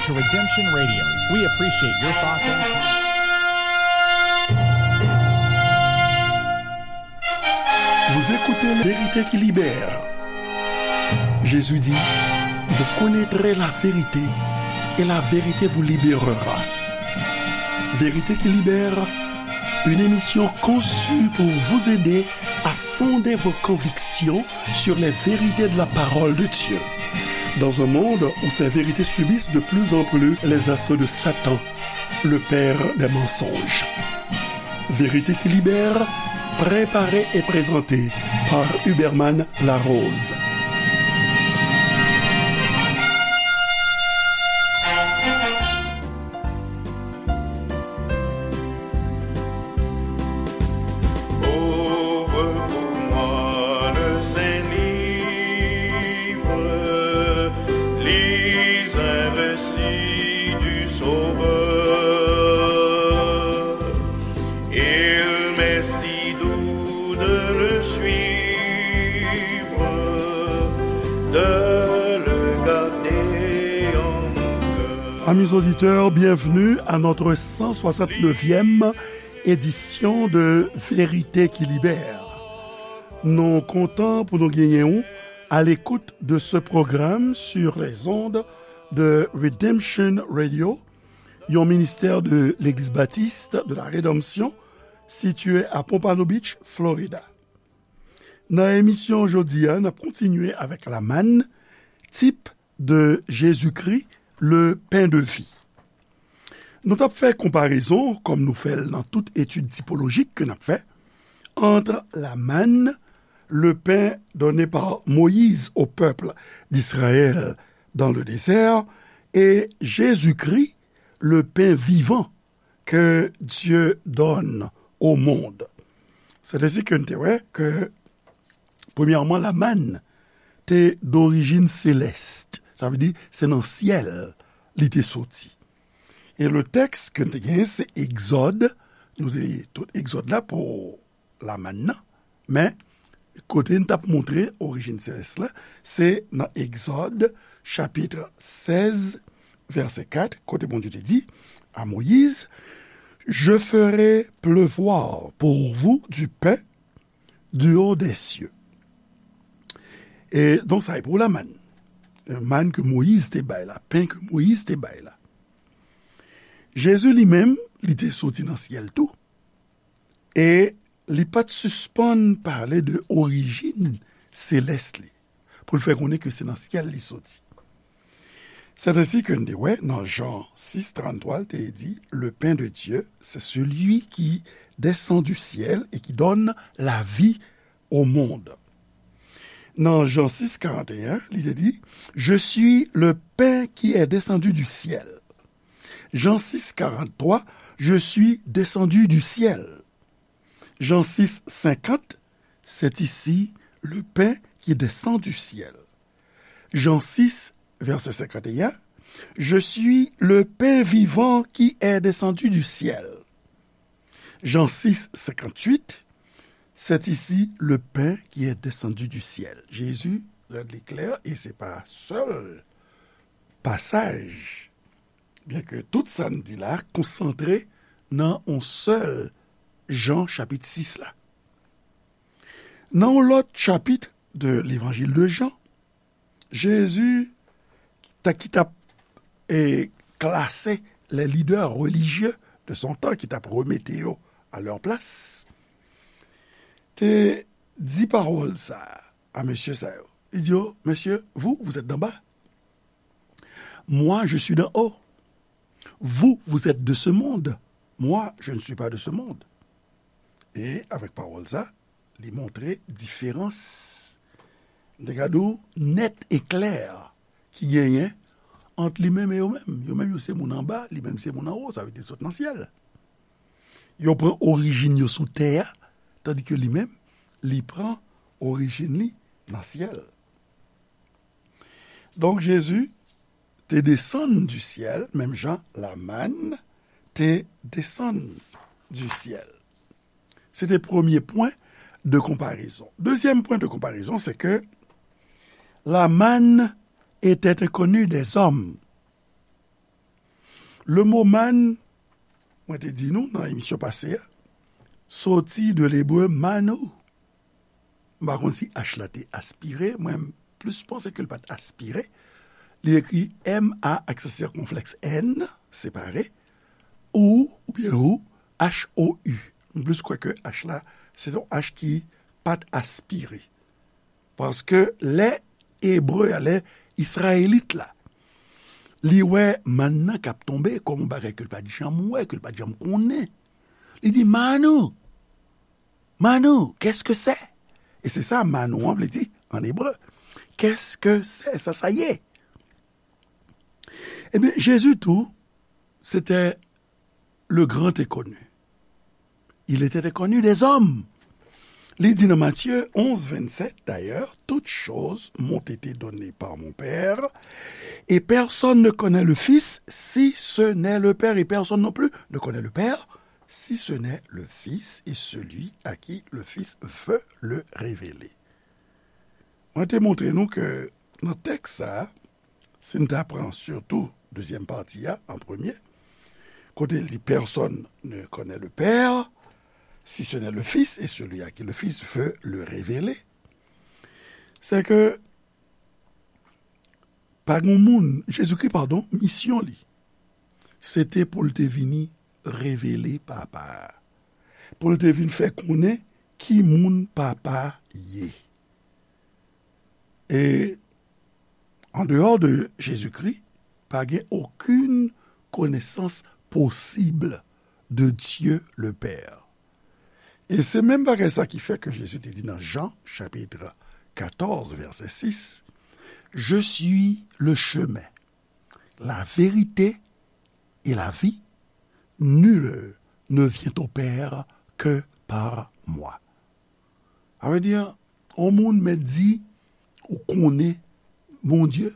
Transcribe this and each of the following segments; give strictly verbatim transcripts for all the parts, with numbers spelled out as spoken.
Redemption Radio. We appreciate your thoughts and comments. Vous écoutez La Vérité qui libère. Jésus dit, vous connaîtrez la vérité et la vérité vous libérera. Vérité qui libère, une émission conçue pour vous aider à fonder vos convictions sur les vérités de la parole de Dieu. Dans un monde où ces vérités subissent de plus en plus les assauts de Satan, le père des mensonges. Vérité qui libère, préparée et présentée par Huberman Larose. Ouvre pour moi le Saint Livre, lis un récit du Sauveur. Il m'est si doux de le suivre, de le garder en mon cœur. Amis auditeurs, bienvenue à notre cent soixante-neuvième édition de Vérité qui Libère. Nou kontan pou nou genyen w à l'écoute de ce programme sur les ondes de Redemption Radio, yon ministè de Legliz Batis de la Redanmsyon sitiye a Pompano Beach, Florida. Nan emisyon jodi a, n ap kontinye avèk Lamann, type de Jésus-Christ, le pain de vie. Nou t ap fè konparezon, kòm nou fè l nan tout etid tipolojik ke n ap fè, entre la manne, le pain donné par Moïse au peuple d'Israël dans le désert, et Jésus-Christ, le pain vivant que Dieu donne au monde. Sètadi ke n te wè ke, premyèman, lamann te dorijin selès. Sa vle di, se nan syèl li te soti. E le tèks ke n te genyen, se Egzòd. Nou te li tout Egzòd la pou lamann nan. Men, kote n t ap montre orijin selès la, se nan Egzòd, chapit sèz, vèsè kat, kote Bondye te di a Moyiz, je ferai pleuvoir pour vous du pain du haut des cieux. E donk, sa e pou lamann. Mann ke Moyiz te bay la, pen ke Moyiz te bay la. Jezi li menm, li te soti nan syèl tou. E li pa t sispann pale de orijin selès li, pou l fè konnen ke se nan syèl li soti. C'est ainsi que n te wè nan Jan sis trannntwa, l te di, le pain de Dieu, c'est celui qui descend du ciel et qui donne la vie au monde. Nan Jan sis karanteyen, li te di, je suis le pain qui est descendu du ciel. Jan sis karanntwa, je suis descendu du ciel. Jan sis senkant, c'est ici le pain qui descend du ciel. Jan sis, vèsè senkanteyen, je suis le pain vivant qui est descendu du ciel. Jan sis senkant uit, c'est ici le pain qui est descendu du ciel. Jezi rann li klè, e se pa sèl pasaj, byenke tout sa n di la konsantre nan yon sèl Jan chapit sis la. Nan yon lòt chapit de Levanjil de Jan, Jezi, ta, ki t ap, e, klase les leaders religieux de son temps, ki t ap remete yo a leur place, te di pawòl sa a, a mesye sa yo. Li di yo, messieurs, vous, vous êtes d'en bas. Moi, je suis d'en haut. Vous, vous êtes de ce monde. Moi, je ne suis pas de ce monde. E avèk pawòl sa, li montre diferans, m te ka di w, nèt e klè ki genyen ant li menm e yo menm. Yo menm, yo se moun anba, li menm se moun anwo, sa vle di sot nan syèl. Yo pran orijin yo sou tè a, tandike li menm, li pran orijin li nan syèl. Donk, Jezi te desann du syèl, menm jan lamann te desann du syèl. Se te premye pwen de konparezon. Dezyèm pwen de konparezon, se ke la manne était inconnue des hommes. Le mo man, mwen te di nou nan emisyon pase a, soti de lebre manu. M pa konn si H la te aspire, mwen m plis panse ke l pa t aspire. Li ekri M A aksan sikonflèks N, separe, ou, oubyen ou, H O U. M plis kwè ke H la, se yon H ki pa t aspire. Paske lè Ebre a, lè Izrayelit la, li wè mann nan k ap tonbe kòm yon bagay ke l pa t janm wè, ke l pa t janm konnen. Li di, Manu, Manu, qu'est-ce que c'est? E se sa manu an vle di an ebre. Qu'est-ce que c'est? Sa sa ye? Ebyen, Jezi tou, se te le grand inconnu. Il était inconnu des hommes. Li di nan Matye onz vennsenk, d'ailleurs, toutes choses m'ont été données par mon Père, et personne ne connaît le Fils si ce n'est le Père, et personne non plus ne connaît le Père si ce n'est le Fils et celui à qui le Fils veut le révéler. Mwen te montre nou ke nan tèks sa a, si n ta pran sitou dezyèm pati a an premye, kote l di, personne ne connaît le Père, si ce n'est le Fils et celui à qui le Fils veut le révéler. Se ke pa gen moun, Jezikri, padon, misyon li, se te pou l te vini revele Papa a. Pou l te vin fè konnen ki moun Papa ye. E an dehors de Jezikri, pa gen okenn konesans posib de Dieu le Père. E se menm bagay sa ki fè ke Jezi te di nan Jan, chapit katòz, vèsè sis, Je suis le chemin, la vérité et la vie. Nul ne vient au Père que par moi. Sa vle di, yon moun mèt di ou konnen Bondye,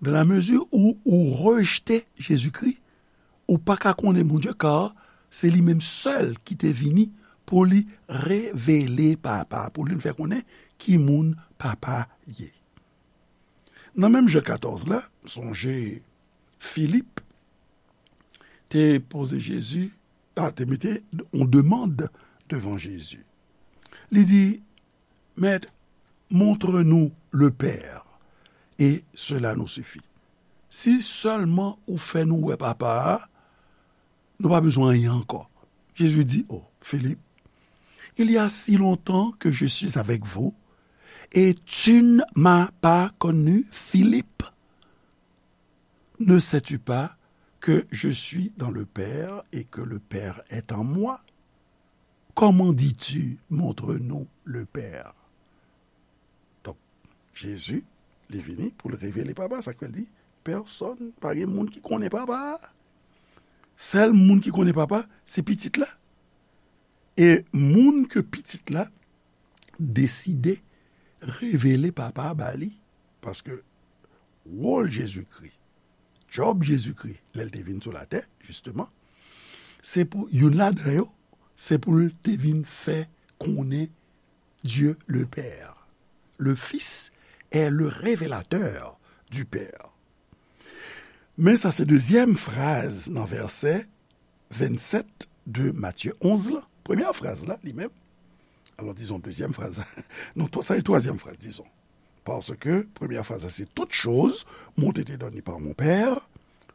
dans la mesure où ou rejte Jezikri, ou pa ka konnen Bondye, kar se li menm sèl ki te vini pou li revele Papa, pou li fè konnen ki moun Papa ye. Nan menm Jan katòz la, sonje Filip te poze Jezi, a, te mete yon demann devan Jezi. Li di, Maître, montre-nous le Père, et cela nous suffit. Si sèlman ou fè nou wè Papa a, nou pa bezwen anyen ankò. Jezi di, oh, Philippe, il y a si longtemps que je suis avec vous, et tu ne m'as pas connu, Philippe? Ne sais-tu pas que je suis dans le Père et que le Père est en moi? Comment dis-tu, montre-nous le Père? Donk, Jezi, li vini pou l revele Papa. Sa k fè l di, pèsonn, pa gen moun ki konnen Papa a. Sèl moun ki konnen Papa, se Pitit la. E moun ke Pitit la deside revele Papa a ba li, paske wòl Jezikri, djòb Jezikri, lè l te vin sou latè, jisteman, se pou, youn ladan yo, se pou l te vin fè konnen Dieu le Père. Le Fils est le révélateur du Père. Men sa se dezyèm fraz nan vèsè vennsèt de Matye onz la. Premyè fraz la, li menm. Alò, dizon, dezyèm fraz la. Non, twa-, sa se twazyèm fraz, dizon. Paske premyè fraz la, se toutes choses m'ont été données par mon Père.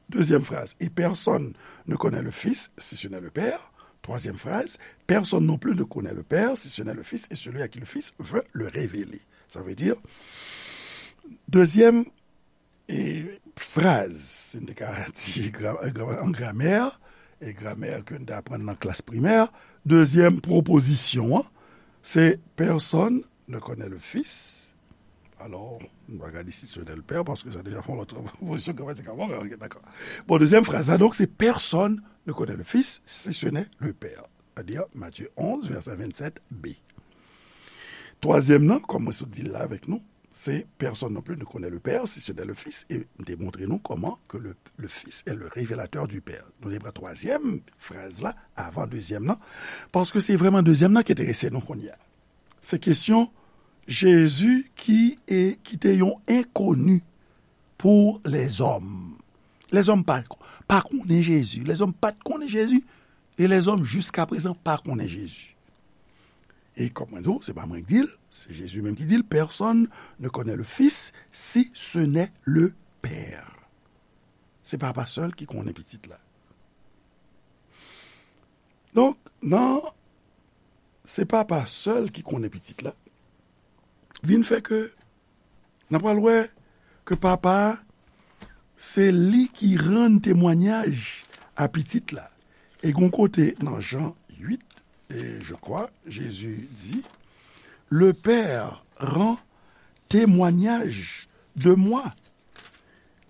Deuxième phrase, et personne ne connaît le Fils si ce n'est le Père. Troisième phrase, personne non plus ne connaît le Père si ce n'est le Fils et celui à qui le Fils veut le révéler. Sa vle di, dezyèm e fraz, si n te ka di gra-, gra-, an gramè, e gramè ke n te aprann nan klas primè, dezyèm pwopozisyon an, se personne ne connaît le Fils. Alò, nou va gade si se le Père, paske sa deja fè yon lòt pwopozisyon gramatikal. Bon, ok, dakò. Bon, dezyèm fraz la, donk, se personne ne connaît le Fils si ce n'est le Père. Sètadi, Matye onz, vèsè vennsèt B. Twazyèm nan, kòm mwen sot di l la avèk nou, se personne non plus ne connaît le Père si ce n'est le Fils. E m te montre nou kòman ke le, le Fils est le révélateur du Père. Nou te pran twazyèm fraz la avan dezyèm nan, paske se vrèman dezyèm nan ki enterese nou kounye a. Se kesyon Jezi ki, e, ki te yon enkoni pou lèzòm. Lèzòm pa, pa konnen Jezi. Lèzòm pa t konnen Jezi, e lèzòm jiskaprezan pa konnen Jezi. E kòm mwen di w, se pa mwen ki di l, se Jezi menm ki di l, personne ne connaît le Fils si ce n'est le Père. Se Papa sèl ki konnen Pitit la. Donk, nan, se Papa sèl ki konnen Pitit la, vin fè ke n ap pral wè ke Papa a, se li ki rann temwanyaj a Pitit la. E gon kote nan Jan uit, e je crois, Jezi di, Le Père rend témoignage de moi.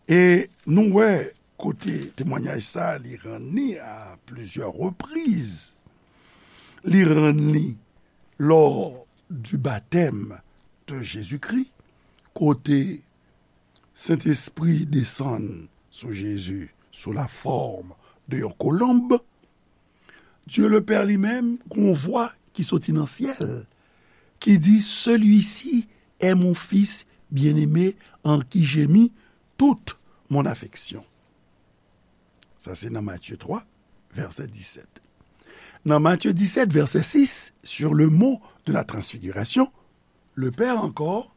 E nou wè kote temwanyaj sa a, li rann li à plusieurs reprises. Li rann li lors du baptême de Jésus-Christ, kote Sentespri desann sou Jezi sou la forme de yon kolonb. Dieu le Père li menm, gon vwa ki soti nan syèl, ki di, Celui-ci est mon Fils bien-aimé en qui j'ai mis toute mon affection. Sa se nan Matye twa, vèsè disèt. Nan Matye disèt, vèsè sis, sur le mot de la transfiguration, le Père encore,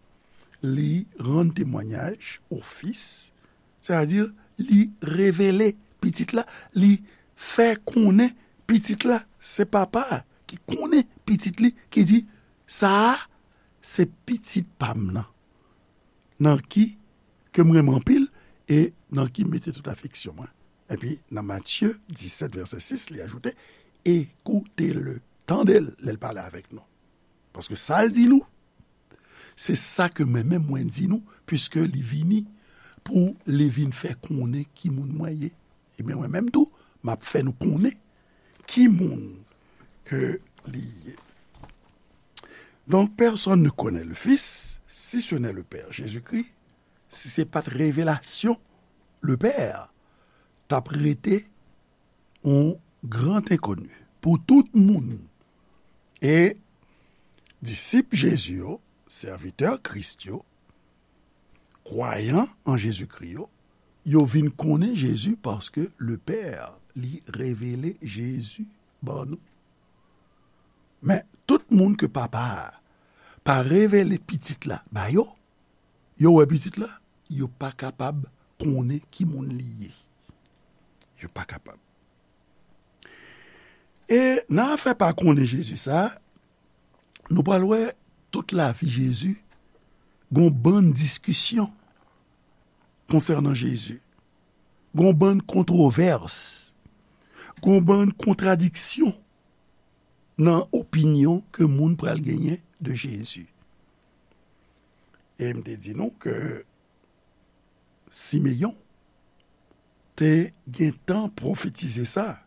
li rann temwanyaj au Fils, c'est-à-dire li revele Pitit la, li fè konnen Pitit la, se Papa a ki konnen Pitit li, ki di, sa a, se Pitit pa m nan, nan ki ke m renmen anpil, e nan ki m mete tout afeksyon mwen. Epi, nan Matye disèt, vèsè sis, li ajoute, Écoutez-le, tande l, lè l pale avèk nou. Paske sa l di nou, se sa ke mwen menm mwen di nou, piske li vini pou li vin fè konnen ki moun mwen ye. Ebyen, mwen menm tou, m ap fè nou konnen ki moun ke li ye. Donc, personne ne connaît le Fils, si ce n'est le Père. Jezikri, si se pa t revelasyon, le Père, t ap rete yon gran enkoni pou tout moun. E disip Jezi yo, sèvitè Kris yo, kwayan an Jezikri yo, yo vin konnen Jezi paske le Père li revele Jezi ban nou. Men, tout moun ke Papa a pa revele Pitit la ba yo, yo wè Pitit la, yo pa kapab konnen ki moun li ye. Yo pa kapab. E nan afè pa konnen Jezi sa, nou pral wè tout lavi Jezi, gon bann diskisyon konsènan Jezi, gon bann kontwovès, gon bann kontradiksyon nan opinyon ke moun pral genyen de Jezi. E m te di nou ke Simeyon te gentan pwofetize sa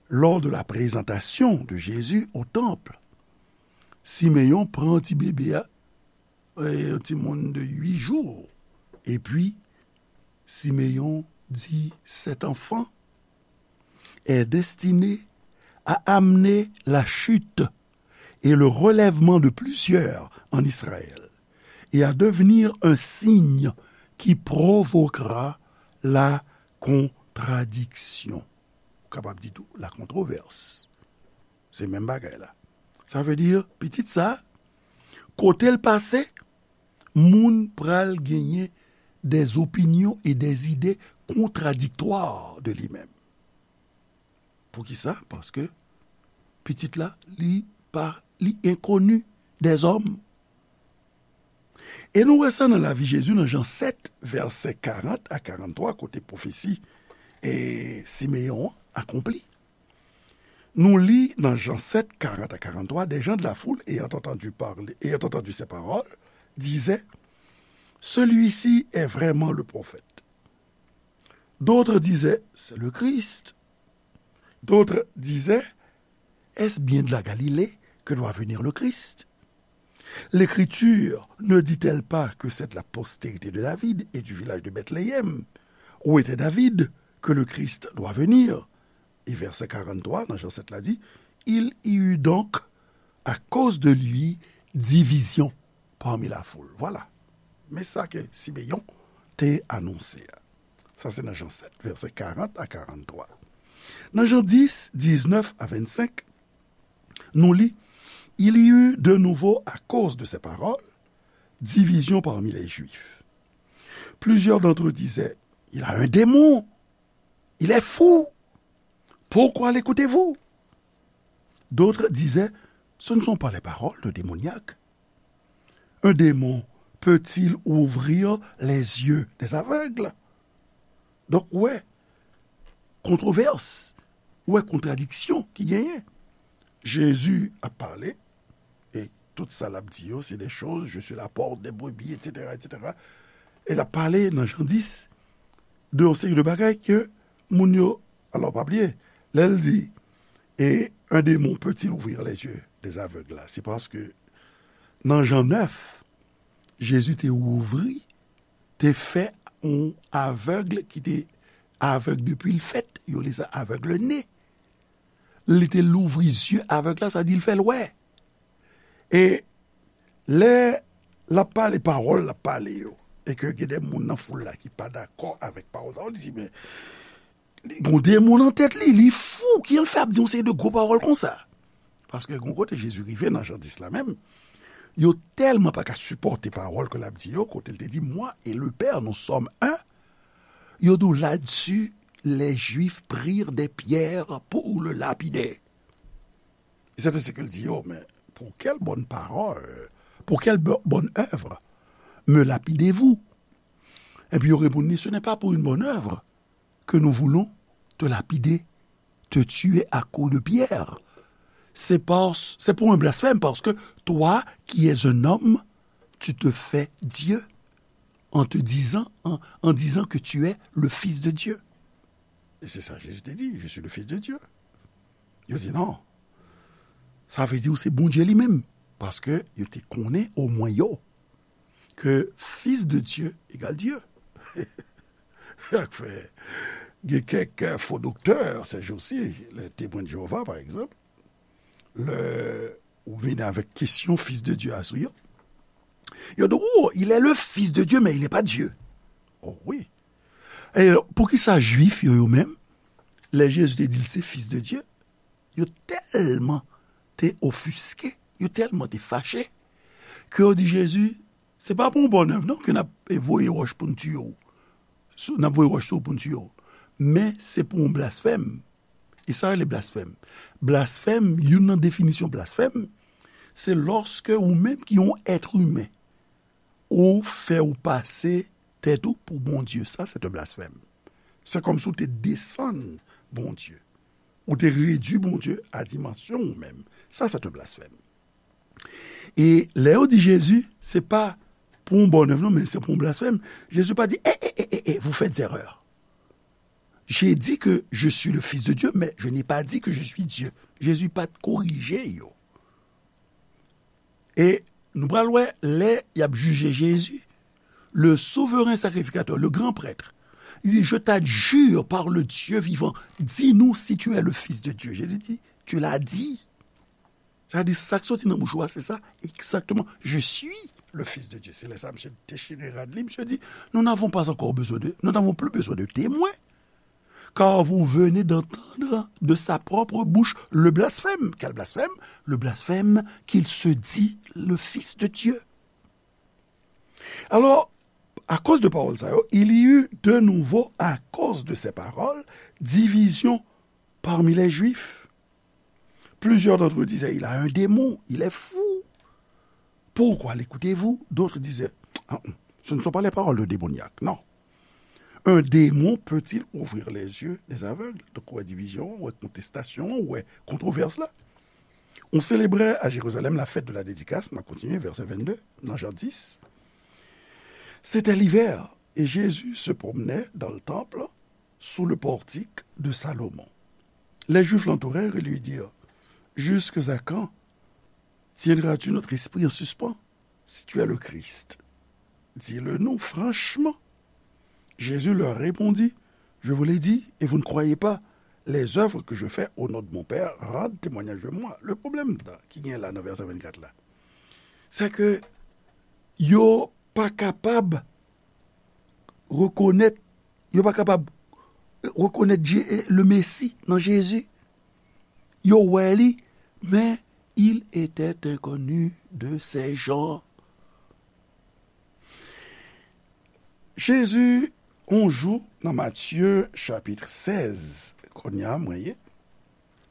lors de la présentation de Jésus au temple. Simeyon pran ti bebe a, e, yon timoun de uit jou, epi Simeyon di, Cet enfant est destiné à amener la chute et le relèvement de plusieurs en Israël, et à devenir un signe qui provoquera la contradiction. Ou kapab di tou, la controverse. Se menm bagay la. Sa vle di, pitit sa, kote l pase, moun pral genyen des opinions et des idées contradictoires de li menm. Poukisa? Paske pitit la, li pa, li enkoni dèzòm. E nou wè sa nan lavi Jezi nan Jan sèt, vèsè karant a karanntwa, kote pwofesi, e, Simeyon an akonpli. Nou li nan Jan sèt, karant a karanntwa, Des gens de la foule, ayant entendu parler, ayant entendu ces paroles, disaient, Celui-ci est vraiment le prophète. D'autres disaient, C'est le Christ. D'autres disaient, Est-ce bien de la Galilée que doit venir le Christ? L'Écriture ne dit-elle pas que c'est de la postérité de David et du village de Bethléem, où était David, que le Christ doit venir? E vèsè karanntwa nan Jan sèt la di, Il y eut donc, à cause de lui, division parmi la foule. Vwala. Men sa ke Simeyon te anonse a. Sa se nan Jan sèt, vèsè karant a karanntwa. Nan Jan dis, diznèf a vennsenk, nou li, Il y eut de nouveau, à cause de ces paroles, division parmi les Juifs. Plusieurs d'entre eux disaient, Il a un démon, il est fou, pourquoi l'écoutez-vous? D'autres disaient, Ce ne sont pas les paroles de démoniaque. Un démon peut-il ouvrir les yeux des aveugles? Donk, ou wè kontwovès, ou wè kontradiksyon ki genyen. Jezi ap pale, e tout sa l ap di yo, se de choz, je suis la porte des brebis, et cetera, et cetera. E l ap pale nan Jan dis de yon seri de bagay ke moun yo, alò, pa bliye, lè l di, et un démon peut-il ouvrir les yeux des aveugles la, se paske nan Jan nèf, Jezi te ouvri, te fè yon avèg ki te avèg depi l fèt, yo rele sa avèg ne. Li te louvri zye avèg la, sa di l fè l wè. E lè l ap pale pawòl l ap pale yo, e ke gen de moun nan foul la ki pa dakò avèk pawòl sa yo, li di, men, li gon demon nan tèt li, li fou, ki l fè ap di yon seri de gwo pawòl konsa? Paske gon kote Jezi rive nan Jan dis la menm, yo tèlman pa ka sipòte pawòl ke l ap di yo, kote l te di, Moi et le Père, nous sommes un. Yo di w, Là-dessus, les Juifs prirent des pierres pour le lapider. C'est ainsi qu'il dit, Oh, mais pour quelle bonne parole, pour quelle bo- bonne œuvre me lapidez-vous? Epi yo reponn li, Ce n'est pas pour une bonne œuvre que nous voulons te lapider, te tuer à coups de pierre. C'est parce, c'est pour un blasphème, parce que toi qui es un homme, tu te fais Dieu en te disant, en, en disant que tu es le Fils de Dieu. E se sa Jezi te di, Je suis le Fils de Dieu. Yo di non. Sa vle di ou se Bondye li menm. Paske yo te konnen omwen yo ke Fils de Dieu égale Dieu. Sa k fè gen kèk fo doktè, ces jours-ci, les Témoins de Jéhovah, par exemple, lè ou vini avèk kesyon Fils de Dieu a sou yo, yo di, Oh, il est le Fils de Dieu, mais il n'est pas Dieu. Oh oui. E poukisa Jwif yo, yo menm, lè Jezi te di l se Fils de Dieu, yo tèlman te ofiske, yo tèlman te fache, ke yo di Jezi, Se pa pou yon bòn èv non ke n ap voye wòch pou n tiye w. Sou- N ap voye wòch sou ou pou n tiye w. Men se pou yon blasfèm. E sa rele blasfèm. Blasfèm, youn nan definisyon blasfèm, se lòske ou menm ki yon èt imen, ou fè ou pase tèt ou pou Bondye. Sa se te blasfèm. Se kòmsi ou te desann Bondye. Ou te redui Bondye a dimansyon ou menm. Sa se te blasfèm. E lè yo di Jezi, se pa pou yon bòn èv non, men se pou yon blasfèm. Jezi pa di, eh, eh, eh, eh, eh, vous faites erreur. J'ai dit que je suis le Fils de Dieu, mais je n'ai pas dit que je suis Dieu. Jezi pa t korije yo. E nou pral wè, lè y ap jije Jezi, le souverain sacrificateur, le grand prêtre, il dit, Je t'adjure par le Dieu vivant, dis-nous si tu es le Fils de Dieu. Jésus dit, Tu l'as dit. Sa di sa k soti nan bouch ou a, se sa, egzakteman. Je suis le Fils de Dieu. Se lè sa, misye dechire rad li, misye di, Nous n'avons pas encore besoin de, nous n'avons plus besoin de témoins, car vous venez d'entendre de sa propre bouche le blasphème. Quel blasphème? Le blasphème qu'il se dit le Fils de Dieu. Alors, à cause de paroles sa yo, il y eut de nouveau, à cause de ces paroles, division parmi les Juifs. Plusieurs d'entre eux disaient, Il a un démon, il est fou. Pourquoi l'écoutez-vous? D'autres disaient, Ah, ce ne sont pas les paroles de démoniaque, non. Un démon peut-il ouvrir les yeux des aveugles? Donk, ou wè divizyon, ou wè kontestasyon, ou wè kontwovès la. On célébrait à Jérusalem la fête de la dédicace, n ap kontinye, vèsè vennde, nan Jan dis. C'était l'hiver, et Jésus se promenait dans le temple sous le portique de Salomon. Les Juifs l'entourèrent et lui dirent, Jusqu'à quand tiendras-tu notre esprit en suspens? Si tu es le Christ, dis-le-nous franchement. Jésus leur répondit, Je vous l'ai dit, et vous ne croyez pas. Les œuvres que je fais au nom de mon Père rendent témoignage de moi. Le problème ki gen la nan vèsè vennkat la, se ke yo pa kapab rekonèt Yo pa kapab rekonèt Je- le Mesi nan Jezi. Yo wè li, men il était inconnu de ces gens. Jezi, yon jou, nan Matye chapit sèz, kounye a mwen ye,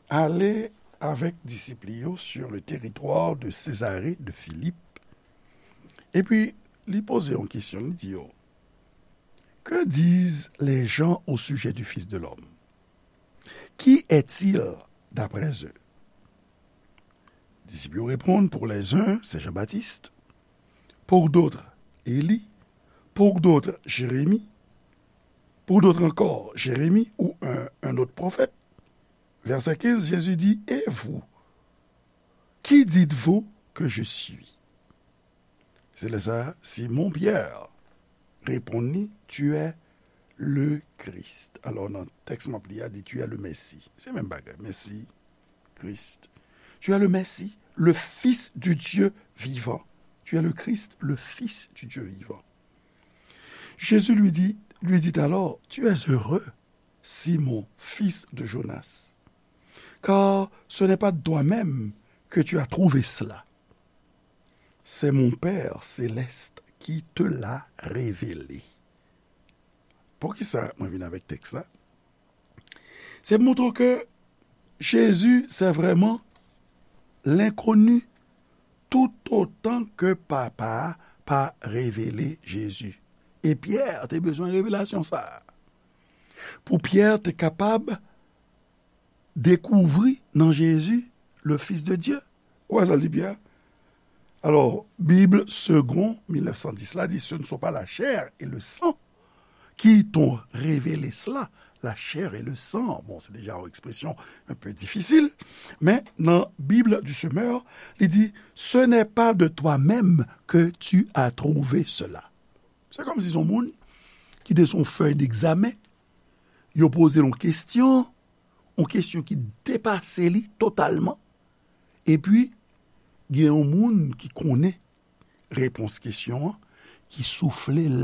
ale avèk disip li yo sur le territoire de Césarée de Philippe. Epi, li poze yon kesyon, li di yo, Que disent les gens au sujet du Fils de l'homme? Qui est-il d'après eux? Disip yo reponn, Pour les uns, c'est Jean-Baptiste, pour d'autres, Élie, pour d'autres, Jérémie, pour d'autres encore, Jérémie ou un, un autre prophète. Verset quinze, Jésus dit, Et vous, qui dites-vous que je suis? Se lè sa, Simon Pyè reponn li, Tu es le Christ. Alò, nan tèks m ap li a, di, Tu es le Messie. Se menm bagay, Messie, Christ. Tu es le Messie, le Fils du Dieu vivant. Tu es le Christ, le Fils du Dieu vivant. Jésus lui dit, lui dit alors, Tu es heureux, Simon, fils de Jonas, car ce n'est pas de toi-même que tu as trouvé cela. C'est mon Père céleste qui te l'a révélé. Poukisa mwen vin avèk tèks la? Se pou montre ke Jezi, se vrèman lenkoni, toutotan ke Papa a pa revele Jezi. E Pyè te bezwen revelasyon sa a. Pou Pyè te kapab dekouvri nan Jezi, le Fils de Dieu. Ou wè sa l di Pyè? Alors, Bible Segond mille neuf cent dix la dit, Ce ne sont pas la chair et le sang qui t'ont révélé cela. La chair et le sang, bon, c'est déjà une expression un peu difficile, mais dans Bible du Semeur, il dit, Ce n'est pas de toi-même que tu as trouvé cela. Se kòmsi se yon moun ki te sou yon fèy degzamen, yo poze l yon kesyon, yon kesyon ki depase li totalman, epi gen yon moun ki konnen repons kesyon an, ki soufle l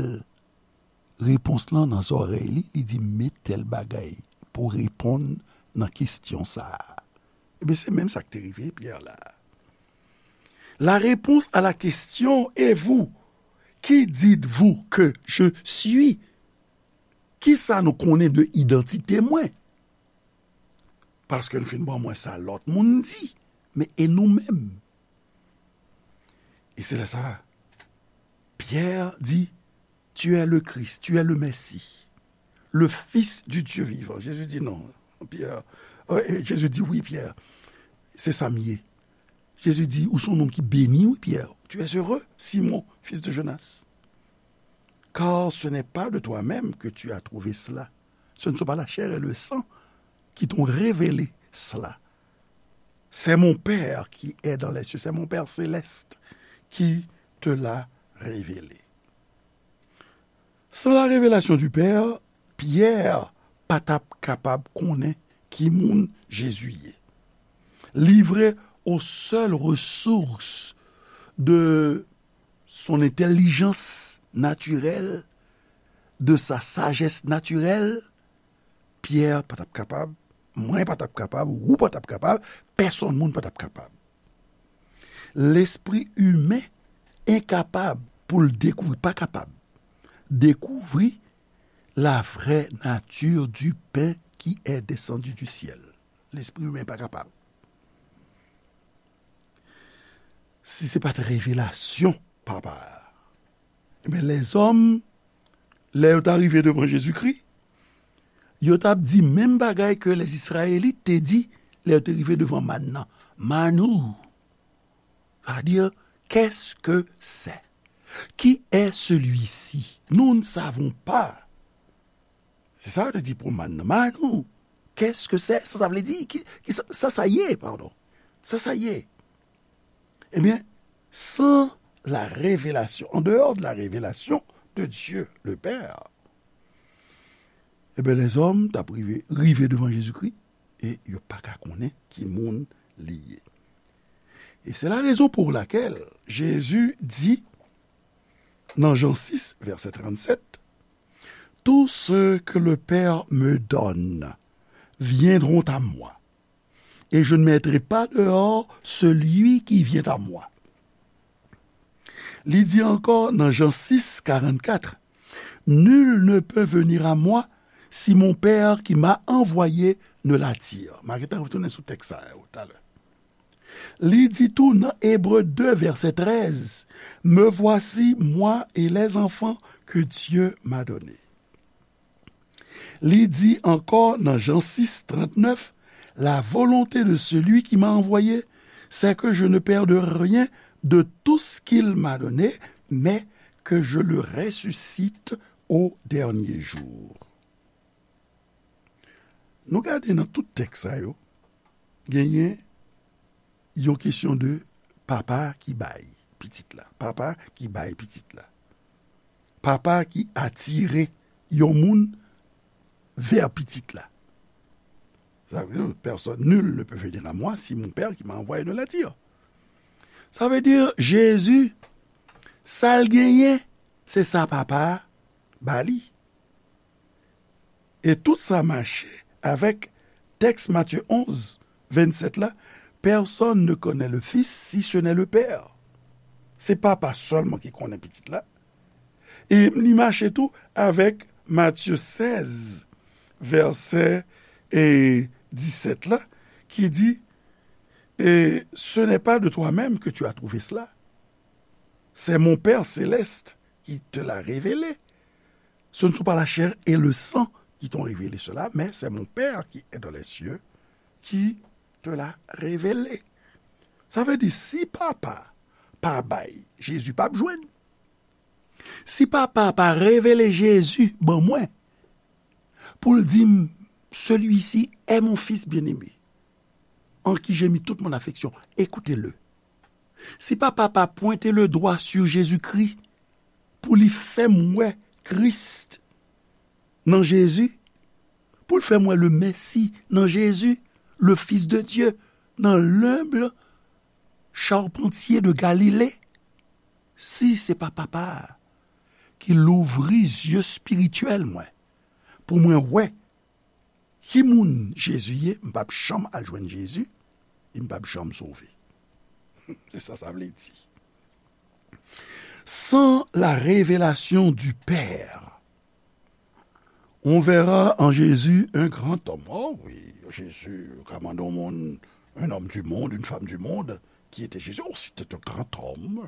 repons lan nan zòrèy li, li di, Men tèl bagay pou reponn nan kesyon sa a. Ebyen, se menm sa k te rive Pyè la. La réponse à la question, Et vous, qui dites-vous que je suis? Kisa nou konnen de idantite mwen? Paske nou fin ban mwen sa lòt moun di, men e nou menm? E se lè sa a, Pyè di, Tu es le Christ, tu es le Messie, le Fils du Dieu vivant. Jezi di, Non, Pyè. Euh, Jezi di, Wi, Pyè, se sa m ye. Jezi di, Ou se yon nonm ki beni, wi, Pyè. Tu es heureux, Simon, fils de Jonas. Car ce n'est pas de toi-même que tu as trouvé cela. Ce ne sont pas la chair et le sang qui t'ont révélé cela. C'est mon Père qui est dans les cieux, c'est mon Père céleste qui te l'a révélé. Sans la révélation du Père, Pyè pa t ap kapab konnen ki moun Jezi ye. Livré aux seules ressources de son intelligence naturelle, de sa sagesse naturelle, Pyè pa t ap kapab, mwen pa t ap kapab, ou pa t ap kapab, pèsonn moun pa t ap kapab. Lespri imen enkapab pou l dekouvri, pa kapab dekouvri la vraie nature du pain qui est descendu du ciel. Lespri imen pa kapab. Si se pa t revelasyon Papa a. Ebyen, lèzòm, lè yo ta rive devan Jezikri, yo t ap di menm bagay ke lèzizrayelit te di lè yo te rive devan màn nan. Mannou, c'est-à-dire, qu'est-ce que c'est? Qui est celui-ci? Nous ne savons pas. Se sa yo te di pou màn nan. Mannou, qu'est-ce que c'est? Sa sa vle di? Ki, ki sa, sa sa ye, pardon? Sa sa ye? Ebyen, sans la révélation, en dehors de la révélation de Dieu le Père, ebyen, lèzòm t ap rive, rive devan Jezikri e yo pa ka konnen ki moun li ye. Et c'est la raison pour laquelle Jésus dit, nan Jan sis, vèsè trannsèt, Tous ceux que le Père me donne viendront à moi, et je ne mettrai pas dehors celui qui vient à moi. Li di ankò nan Jan sis, karannkat, Nul ne peut venir à moi si mon Père qui m'a envoyé ne l'attire. M a gentan retounen sou tèks sa yo talè. Li di tou nan Ebre de, vèsè trèz, Me voici, moi et les enfants que Dieu m'a donnés. Li di ankò nan Jan sis, trannèf, La volonté de celui qui m'a envoyé, c'est que je ne perde rien de tout ce qu'il m'a donné, mais que je le ressuscite au dernier jour. Nou gade nan tout tèks sa yo, genyen yon kesyon de papa ki bay pitit la. Papa ki bay pitit la. Papa ki atire yon moun vè pitit la. Sa vle di, personne, nul ne peut venir à moi si mon Père qui m'a envoyé ne l'attire. Sa vle di, Jezi, sa l genyen, se sa papa a ba li. E tout sa mache avèk tèks Matye onz, vennsèt la, Personne ne connaît le Fils si ce n'est le Père. Se papa sèlman ki konnen pitit la. E li mache tou avèk Matye sèz, vèsè, e, disèt la, ki di, e, Ce n'est pas de toi-même que tu as trouvé cela. C'est mon Père céleste qui te l'a révélé. Ce ne sont pas la chair et le sang qui t'ont révélé cela, mais c'est mon Père qui est dans les cieux qui te l'a révélé. Sa vle di, si papa pa bay, Jezi p ap jwenn. Si papa pa revele Jezi ban mwen, pou l di m, Celui-ci est mon Fils bien-aimé, en qui j'ai mis toute mon affection, écoutez-le. Si papa pa pwente le dwa sou Jezikri pou li fè m wè Kris nan Jezi, pou l fè m wè le Messie nan Jezi, le Fils de Dieu, nan lenb chapantye de Galile, si se pa papa a ki louvri zye espirityèl mwen, pou mwen wè ki moun Jezi ye, m p ap janm al jwenn Jezi, e m p ap janm sove. Se sa sa vle di. Sans la révélation du Père, on verra en Jésus un grand homme. Oh oui, Jésus, ka mande yon moun, un homme du monde, une femme du monde, qui était Jésus. Oh, c'était un grand homme,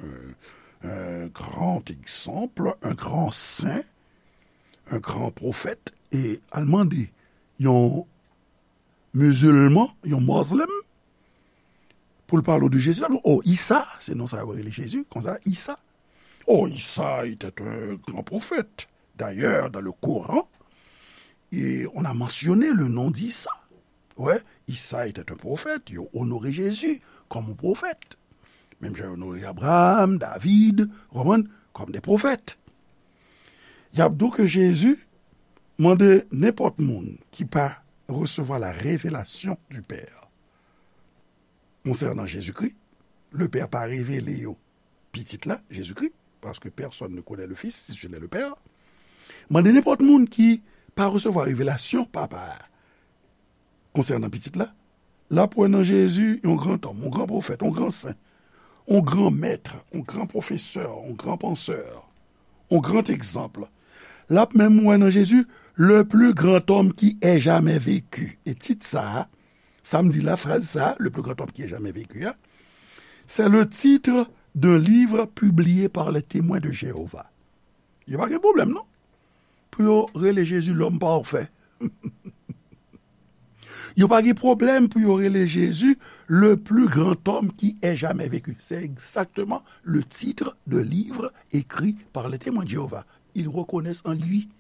un, un grand exemple, un grand saint, un grand prophète. E al mande yon mizilman, yon mizilman, pou l pale w de Jezi, l ap di w, oh, Isa, se non sa yo rele Jezi, konsa, Isa. Oh, Isa était un grand prophète. D'ailleurs, dans le Coran, et on a mentionné le nom d'Isa. Ouais, Isa était un prophète. Yo onore Jezi kòm yon pwofèt. Menm jan yo onore Abraham, David, w konprann, kòm de pwofèt. Y ap di w ke Jezi mande nenpòt moun ki pa resevwa la révélation du Père konsènan Jezikri, Lepè pa revele yo Pitit la, Jezikri, parce que personne ne connaît le Fils si ce n'est le Père. Mande nenpòt moun ki pa resevwa revelasyon Papa a konsènan Pitit la, l ap wè nan Jezi yon gran òm, yon gran pwofèt, yon gran sen, yon gran mèt, yon gran pwofesè, yon gran pansè, yon gran egzanp. L ap menm wè nan Jezi le plus grand homme qui ait jamais vécu. E tit sa a, sa m di la, fraz sa a, le plus grand homme qui ait jamais vécu a, c'est le titre d'un livre publié par les Témoins de Jéhovah. Yo pa gen pwoblèm, non, pou yo rele Jezi lòm pafè. Yo pa gen pwoblèm pou yo rele Jezi le plus grand homme qui ait jamais vécu. C'est exactement le titre de livre écrit par les Témoins de Jéhovah. Ils reconnaissent en lui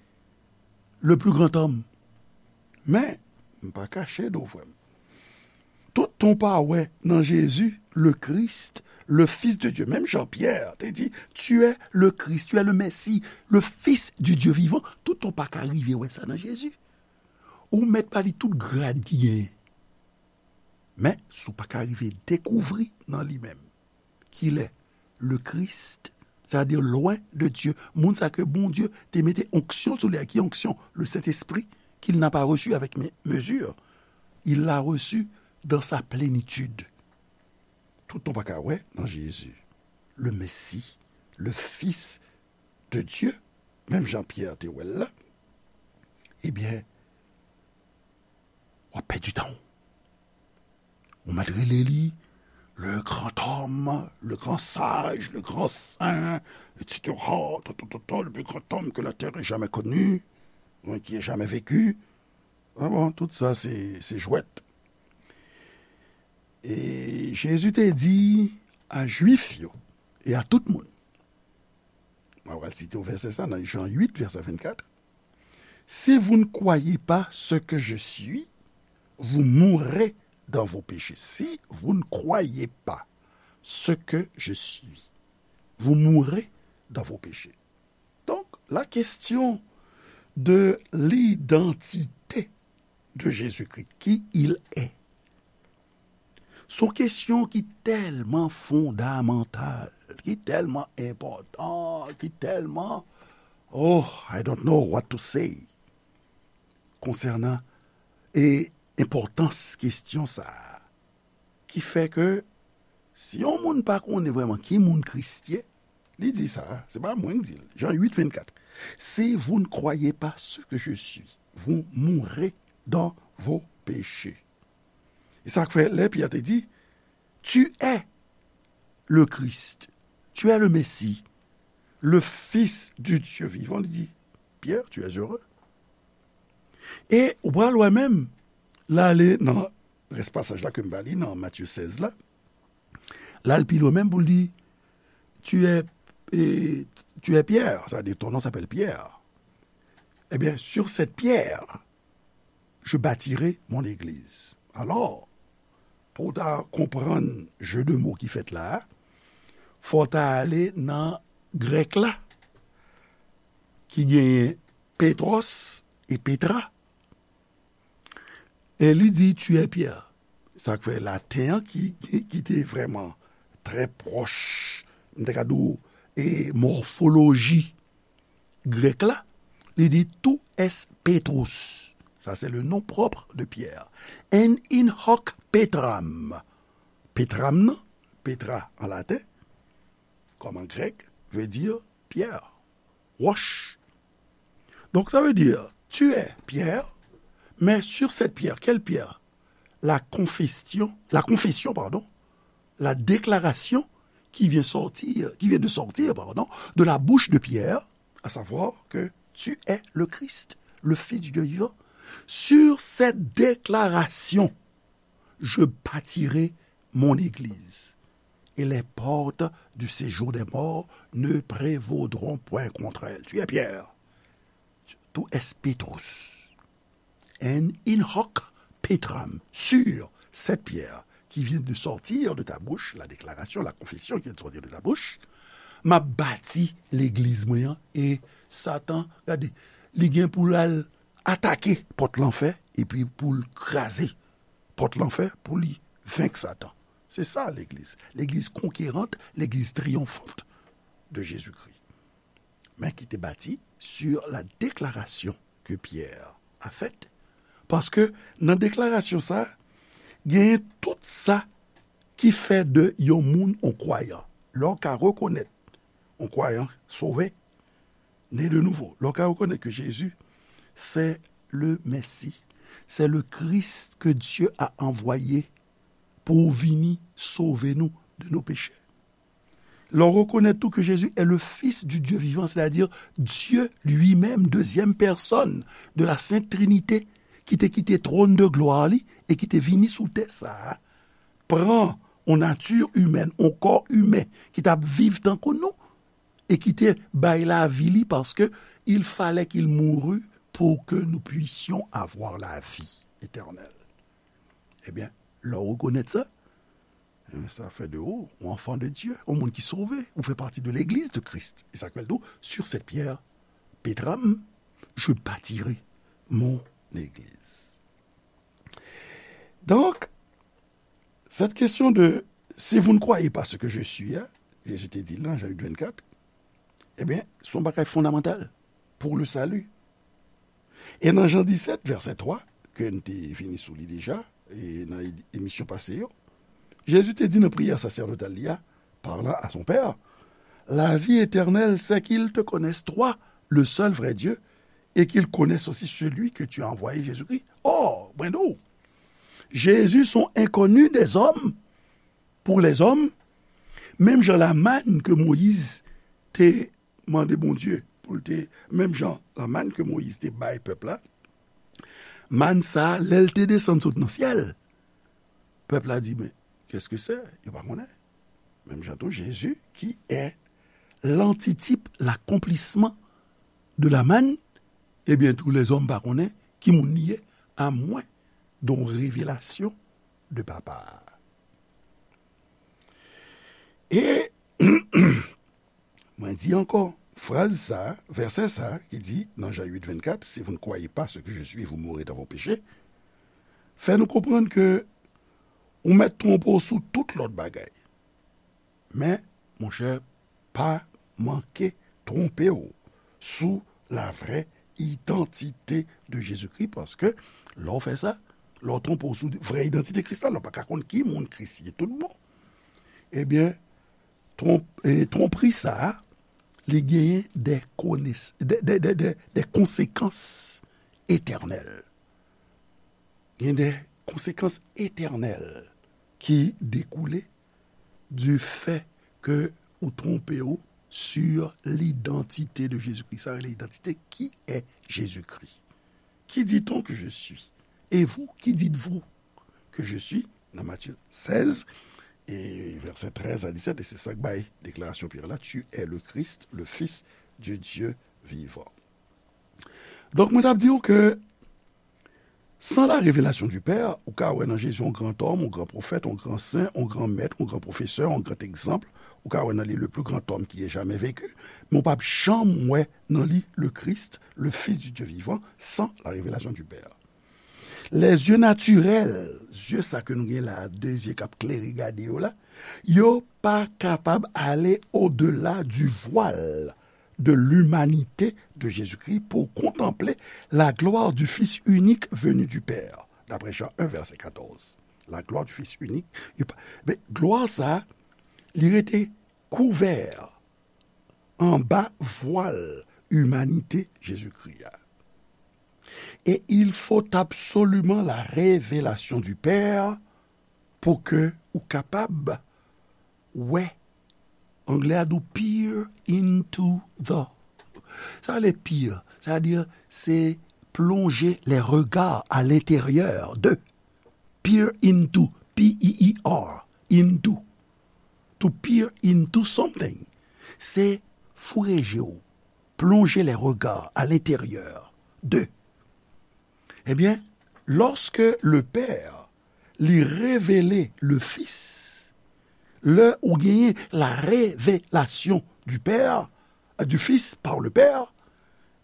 le plus grand homme. Men, m pa kache de w, frè m. Toutan w pa wè nan Jezi, le Christ, le Fils de Dieu. Menm Jan Pyè te di, Tu es le Christ, tu es le Messie, le Fils du Dieu vivant. Toutan w pa ka rive wè sa nan Jezi. Ou mèt ba li tout grad ki genyen. Men, si w pa ka rive dekouvri nan li menm, qu'il est le Christ, c'est-à-dire loin de Dieu. Moun sa ke Bondye te mete onksyon sou li, ki onksyon? Le Saint-Esprit, qu'il n'a pas reçu avec me- mesure. Il l'a reçu dans sa plénitude. Tout nou pa ka wè nan Jezi, le Messie, le Fils de Dieu, menm jan Pyè te wè l la, ebyen, w ap pèdi tan w. Ou mèt rele li le grand homme, le grand sage, le grand saint, et cetera. Ta, ta, ta, ta, le plus grand homme que la terre ait jamais connu, ou qui ait jamais vécu. Ah bon, tout sa se, se jwèt. E Jezi te di a Jwif yo e a tout moun, mwen pral site w vèsè sa nan Jan uit, vèsè vennkat, si vous ne croyez pas ce que je suis, vous mourrez dans vos péchés. Si vous ne croyez pas ce que je suis, vous mourrez dans vos péchés. Donc, la question de l'identité de Jésus-Christ, qui il est, se yon kesyon ki tèlman fondamantal, ki tèlman enpòtan, ki tèlman, oh, I don't know what to say konsènan e enpòtans kesyon sa a, ki fè ke si yon moun pa konnen vrèman ki moun Kris ye, li di sa, se pa mwen ki di l. Jan uit, vennkat. Si vous ne croyez pas ce que je suis, vous mourrez dans vos péchés. E sa k fè lè Pyè te di, tu es le Christ, tu es le Messie, le Fils du Dieu vivant, li di, Pierre, tu es heureux. E ou pral wè menm, l ale nan rès pasaj la ke m ba li nan Matye sèz la, l al pi lwen menm pou l di, tu es, eh, tu es Pierre, sa vle di ton non s'appelle Pierre. Ebyen, sur cette pierre, je bâtirai mon église. Alò, pou w ta konprann jeu de mots ki fèt la a, fò w ta ale nan grèk la, ki genyen Petros e Petra. E li di, tu es Pierre. Sa k fè laten an ki, ki, ki te vrèman trè pwòch, m te ka di w, e mòfoloji grèk la, li di, tu es Petrus. Sa se le nom propre de Pierre. En in hoc Petram. Petram nan, Petra an laten, kòm an grèk, vle di pyè, wòch. Donc ça veut dire, tu es Pierre, mais sur cette pierre, quelle pierre? La confession, la confession, pardon, la déclaration qui vient sortir, qui vient de sortir, pardon, de la bouche de Pierre, à savoir que tu es le Christ, le Fils du Dieu vivant. Sur cette déclaration, je bâtirai mon église, et les portes du séjour des morts ne prévaudront point contre elle. Tu es Pierre, tu es Petrus, en in hoc Petram, sur cette pierre qui vient de sortir de ta bouche, la déclaration, la confession qui vient de sortir de ta bouche, m ap bati legliz mwen an, e Satan, gade, li gen pou l al atake pòt lanfè, epi pou l kraze pòt lanfè, pou li venk Satan. Se sa legliz. Legliz conquérante, legliz triyonfant de Jésus-Christ. Men ki te bati sur la déclaration que Pierre a faite. Paske nan deklarasyon sa, genyen tout sa ki fè de yon moun yon kwayan. Lè w ka rekonèt yon kwayan sove, né de nouveau, lè w ka rekonèt ke Jezi, c'est le Messie, c'est le Christ que Dieu a envoyé pou vini sove nou de nos péchés. Lè w rekonèt tou ke Jezi est le Fils du Dieu vivant, c'est-à-dire Dieu lui-même, deuxième personne de la Sainte Trinité, ki te kite twòn de glwa li e ki te vini sou tè sa a, pran yon nati imèn, yon kò imen ki t ap viv tankou nou, e ki te bay lavi li, paske il fallait qu'il mourût pour que nous puissions avoir la vie éternelle. Ebyen, lè w rekonèt sa, ebyen, sa fè de ou yon enfant de Dieu, yon moun ki sove, ou fè pati de l'église de Christ. E sa k fè l di w, sur cette pierre, Petram, je bâtirai mon église. Donc, cette question de si vous ne croyez pas ce que je suis, hein, Jésus te di l nan Jan uit vennkat, Ebyen, se yon bagay fondamantal pour le salut. E nan Jan disèt, vèsè twa, ke n te vini sou li deja, e nan ed-, emisyon pase yo, Jezi te di nan priyè sasèdotal li a, parlant à son Père, la vie éternelle, c'est qu'ils te connaissent, toi, le seul vrai Dieu, et qu'ils connaissent aussi celui que tu as envoyé, Jésus-Christ. Or, mwen di w, Jezi se yon enkoni dèzòm pou lèzòm, menm jan lamàn ke Moyiz te mande Bondye pou l te, menm jan lamàn ke Moyiz te bay pèp la, màn sa a, lè l te desann sot nan syèl, pèp la di, men, qu'est-ce que c'est? Yo pa konnen. Menm jan tou, Jezi, qui est l'antitype, l'accomplissement de la manne, ebyen, tou lèzòm pa konnen ki moun li ye, amwen de yon revelasyon de Papa a. E mwen di ankò, fraz sa, vèsè sa, ki di nan Jan uit vennkat, si vous ne croyez pas ce que je suis, vous mourrez dans vos péchés, fè nou konprann ke ou mèt twonpe w sou tout lòt bagay. Men, monchè, pa manke twonpe w sou la vraie identité de Jésus-Christ, paske lè w fè sa, lè w twonpe w sou vrè idantite Kris la, lè w pa ka konn ki moun Kris ye tout bon, ebyen, twonp-, e, twonpri sa a, li genyen de kones-, de, de, de, de, de konsekans etènèl. Gen de konsekans etènèl ki dekoule du fait que ou twonpe w sur l'identité de Jésus-Christ. Sa rele idantite, qui est Jésus-Christ? Qui dit-on que je suis? Et vous, qui dites-vous que je suis? Nan Matye sèz, e vèsè trèz a disèt, e se sa k bay deklarasyon Pyè la, tu es le Christ, le Fils du Dieu vivant. Donk, mwen t ap di w ke sans la révélation du Père, ou ka wè nan Jezi yon gran òm, yon gran pwofèt, yon gran sen, yon gran mèt, yon gran pwofesè, yon gran egzanp, ou ka wè nan li le plus grand homme qui ait jamais vécu, men ou p ap janm wè nan li le Christ, le Fils du Dieu vivant, sans la révélation du Père. Les yeux naturels, zye sa ke nou gen la, de zye k ap klere gade yo la, yo pa kapab ale au-delà du voile de l'humanité de Jésus-Christ pour contempler la gloire du Fils unique venu du Père, d'après Jean un, verset quatorze. La gloire du Fils unique, yo pa, men glwa sa, li rete kouvè anba vwal imanite Jezikri a. E il faut absolument la révélation du Père pou ke ou kapab wè. Anglè a di w peer into the. Sa vle peer, sa vle di se plonger les regards à l'intérieur de. Peer into, P E E R, into. To peer into something, se foure je w, plonger les regards à l'intérieur de. Ebyen, lorsque le Père li revele le Fils, lè ou genyen la révélation du Père, du Fils par le Père,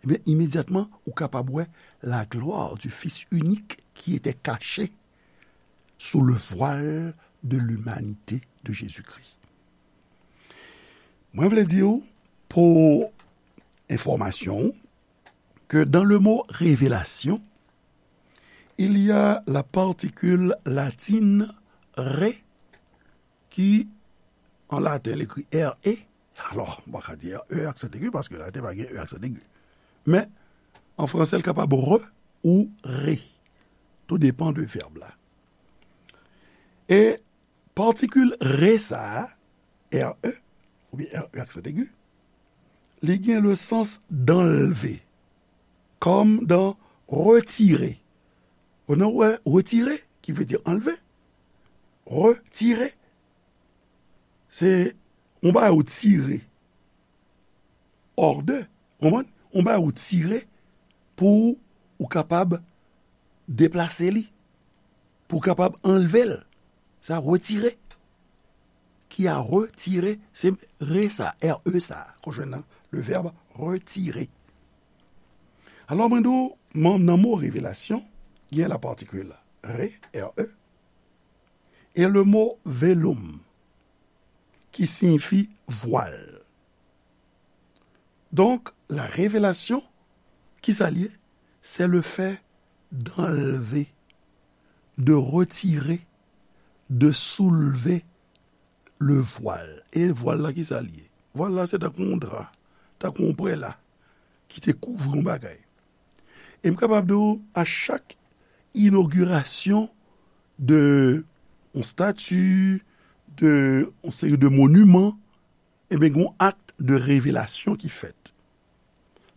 ebyen, imedyatman, ou kapab wè la gloire du Fils unique qui était caché sous le voile de l'humanité de Jésus-Christ. Mwen vle di w, pou enfòmasyon w, que dans le mot révélation, il y a la particule latine re, qui en latin il écrit R E. Alors, on va dire R E accent aigu parce que latin pa gen E accent aigu. Mais en français, il est capable re ou ré. Tout dépend du verbe là. Et partikil re sa a, R E, oubyen R E accent aigu, li gen le sens d'enlever, comme dans retirer. Ou nan wè retire, ki vle di anlve. Retire, se yon bagay ou tire hors de, konprann? Yon bagay ou tire pou ou kapab deplase li, pou ou kapab anlve l. Sa retire. Ki a retire, se re sa, R E sa, ke w jwenn nan le verbe retirer. Alò, mwen di w, nan mo revelasyon, gen la partikil re, R E, e le mo velum, ki siyifi vwal. Donk, la révélation, ki sa l ye? C'est le fait d'enlever, de retirer, de soulever le voile. E vwal la, ki sa l ye? Vwal la, se tankou yon dra, tankou yon prela ki te kouvri yon bagay. E m kapab di w, a chak inogirasyon de yon stati, de yon seri de moniman, ebyen, gen yon akt de revelasyon ki fèt.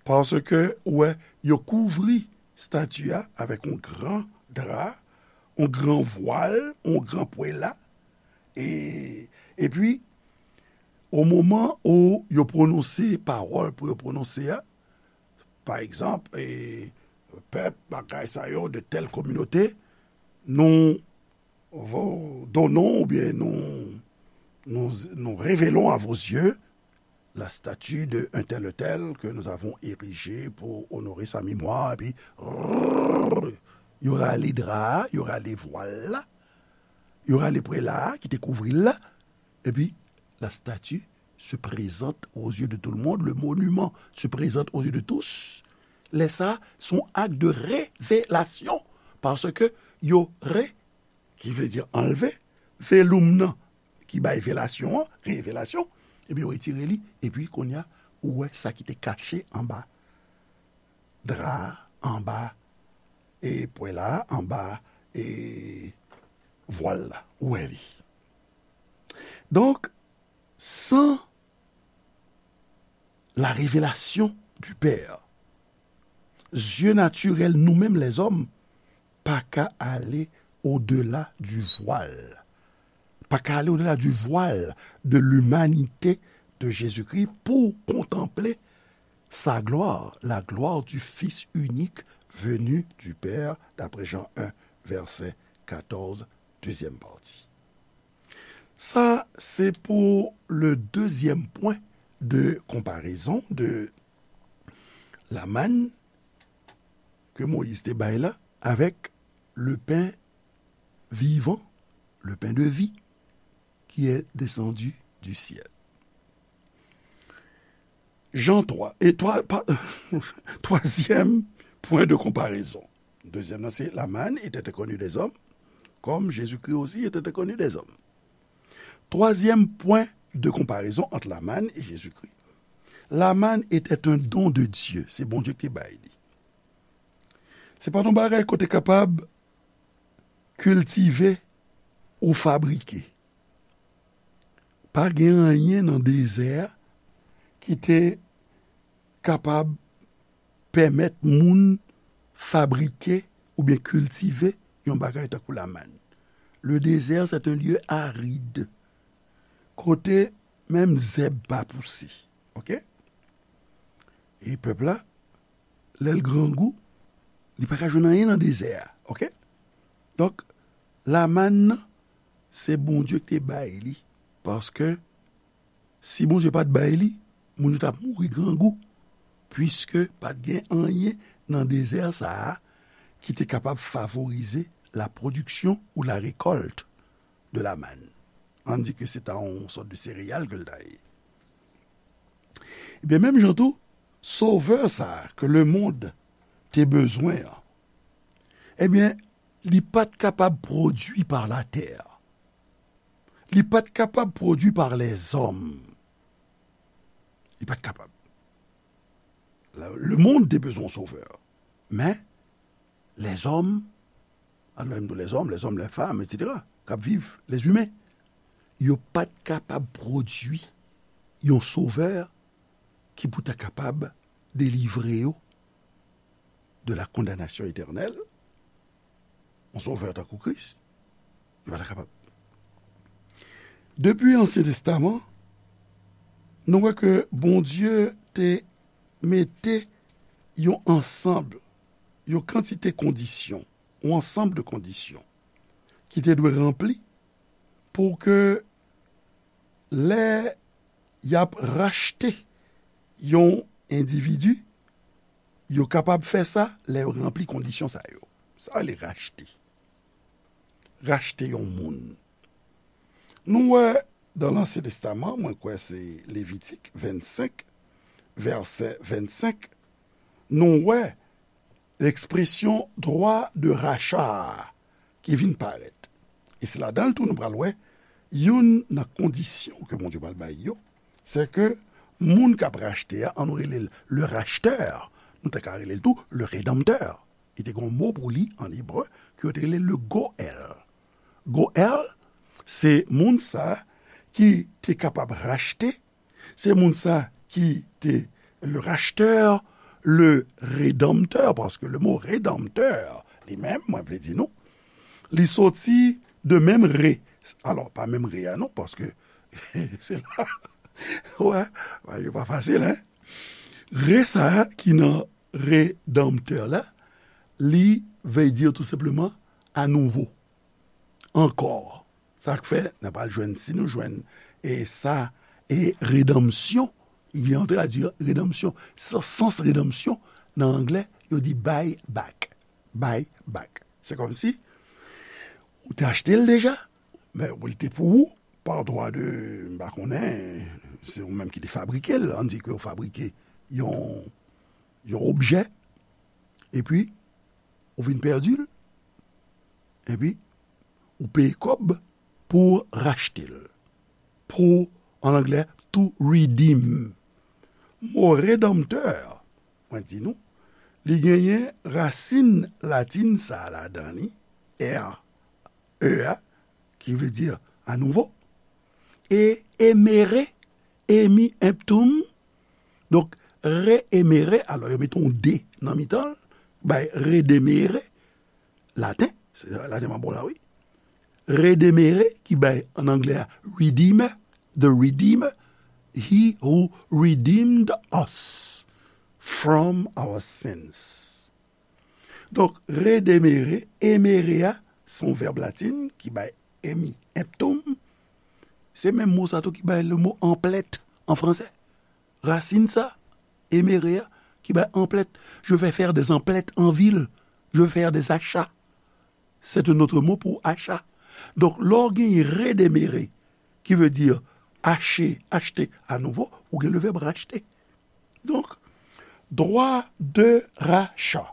Paske, ou wè, yo kouvri stati a avèk yon gran dra, yon gran vwal, yon gran pwela. E, epi, o moman ou yo pwononse pawòl pou yo pwononse a, pa egzanp, e, pèp, bagay sa yo, de tèl kominote, nou vo-, donnons oubyen nous, nous, nous révélons à vos yeux la statue de un tel, un tel que nous avons érigée pour honorer sa mémoire, epi, rrrr, yo rale dra a, yo rale vwal la, yo rale prela a ki te kouvri l la, epi la statue se présente aux yeux de tout le monde, le monument se présente aux yeux de tous. Lè sa, se yon ak de revelasyon, paske yo re-, ki vle di anlve, veloum nan, ki bay velasyon an, revelasyon, epi yo retire li, epi kounye a, ou wè sa ki te kache anba dra a, anba, e, pwela a, anba, e, vwal la, ou wè li. Donk, san la révélation du Père, zye natirèl nou menm lèzòm pa ka ale odela du vwal, pa ka ale odela du vwal de limanite de Jezikri pou kontanple sa glwa, la glwa du Fis inik veni du Pè, daprè Jan en, vèsè katòz, dezyèm pati. Sa, se pou le deuxième point de comparaison de la manne ke Moyiz te bay la avèk le pain vivant, le pain de vie qui est descendu du ciel. Jan twa, e twa, pa, twazyèm pwen de konparezon. Dezyèm nan, se la manne était inconnue des hommes, comme Jésus-Christ aussi était inconnu des hommes. Twazyèm pwen de konparezon ant la manne et Jésus-Christ. La manne était un don de Dieu. Se Bondye ki te bay li. Se pa t yon bagay ke w te kapab kiltive ou fabrike. Pa gen anyen nan dezè a ki te kapab pèmèt moun fabrike oubyen kiltive yon bagay tankou la manne. Le désert, c'est un lieu aride. Kote menm zèb pa pouse. Oke? E pèp la, lè l grangou, li pa ka jwenn anyen nan dezè a. Oke? Donk, la manne nan, se Bondye ki te bay li. Paske, si Bondye pa t bay li, moun yo t ap mouri grangou. Piske pa t gen anyen nan dezè sa a ki te kapab favorize la production ou la récolte de la manne. Ann di ke se ta yon sòt de sereyal ke l ta ye. Ebyen, menm jan tou, Sovè sa a ke lemonn te bezwen an, ebyen, li pa t kapab pwodui pa latè. Li pa t kapab pwodui pa lèzòm. Li pa t kapab. Le, lemonn te bezwen yon sovè. Men, lèzòm, alò, lè m di lèzòm, lèzòm, lèfanm, etsetera, k ap viv, lèzimen, yo pa t kapab pwodui yon sovè ki pou ta kapab delivre yo de la condamnation éternelle, yon sovè tankou Kris, yo pa ta kapab. Depi Ansyen Testaman, nou wè ke Bondye te mete yon ansanm, yon kantite kondisyon, yon ansanm de kondisyon ki te dwe ranpli pou ke lè y ap rachte yon endividi, yo kapab fè sa lè yo ranpli kondisyon sa yo. Sa rele rachte. Rachte yon moun. Nou wè, dan Lansyen Testaman, mwen kwè se Levitik vennsenk, vèsè vennsenk, nou wè ekspresyon droit de rachat ki vin parèt. E se ladan l tou nou pral wè youn nan kondisyon ke Bondye pral bay yo, se ke moun k ap rachte a, ann rele l le racheteur, nou te ka rele l tou le rédempteur. Li te gen yon mo pou li ann ebre ke yo te rele le goel. Goel, se moun sa ki te kapab rachte, se moun sa ki te le racheteur, le rédempteur, paske le mo rédempteur, li menm, mwen vle di nou, li soti de menm re. Alò, pa menm re a non, paske se la, wè, wè, yo pa fasil, en. Re sa a ki nan redanmtè la, li vle di tou senpleman anouvo, ankò. Sa k fè, n ap al jwenn, si nou jwenn, e sa, e redanmsyon, yo tradui redanmsyon, sa, sans redanmsyon, nan anglè, yo di buy back. Buy back. Se kòmsi, ou te achte l deja, men ou li te pou ou, pa dwa de, m pa konnen, se ou menm ki te fabrike l, ann di ke ou fabrike yon, yon objè, epi ou vin pèdi l, epi ou peye kòb pou rachte l. Pou, an anglè, to redeem. Mo redanmtè, mwen di nou, li genyen rasin latin sa a ladan li, er, e a, ki vle di anouvo, e emere, emi emptum, donk re-emere, alò yo mete yon de nan mitan l, bay redemere, laten, se laten m ap ba w la, wi. Redemere, ki bay an anglè a redeemer, the redeemer, he who redeemed us from our sins. Donk, redemere, emere a, se yon vèb latin ki bay emi emptum. Se menm mo sa tou ki bay le mo emplettes an fransè. Rasin sa, emere a, ki bay emplettes. Je vais faire des emplettes en ville. Je vais faire des achats. C'est un autre mot pour achat. Donk, lè w gen redemere, ki vle di ache, achte anouvo, ou gen le vèb rachte. Donk, droit de rachat.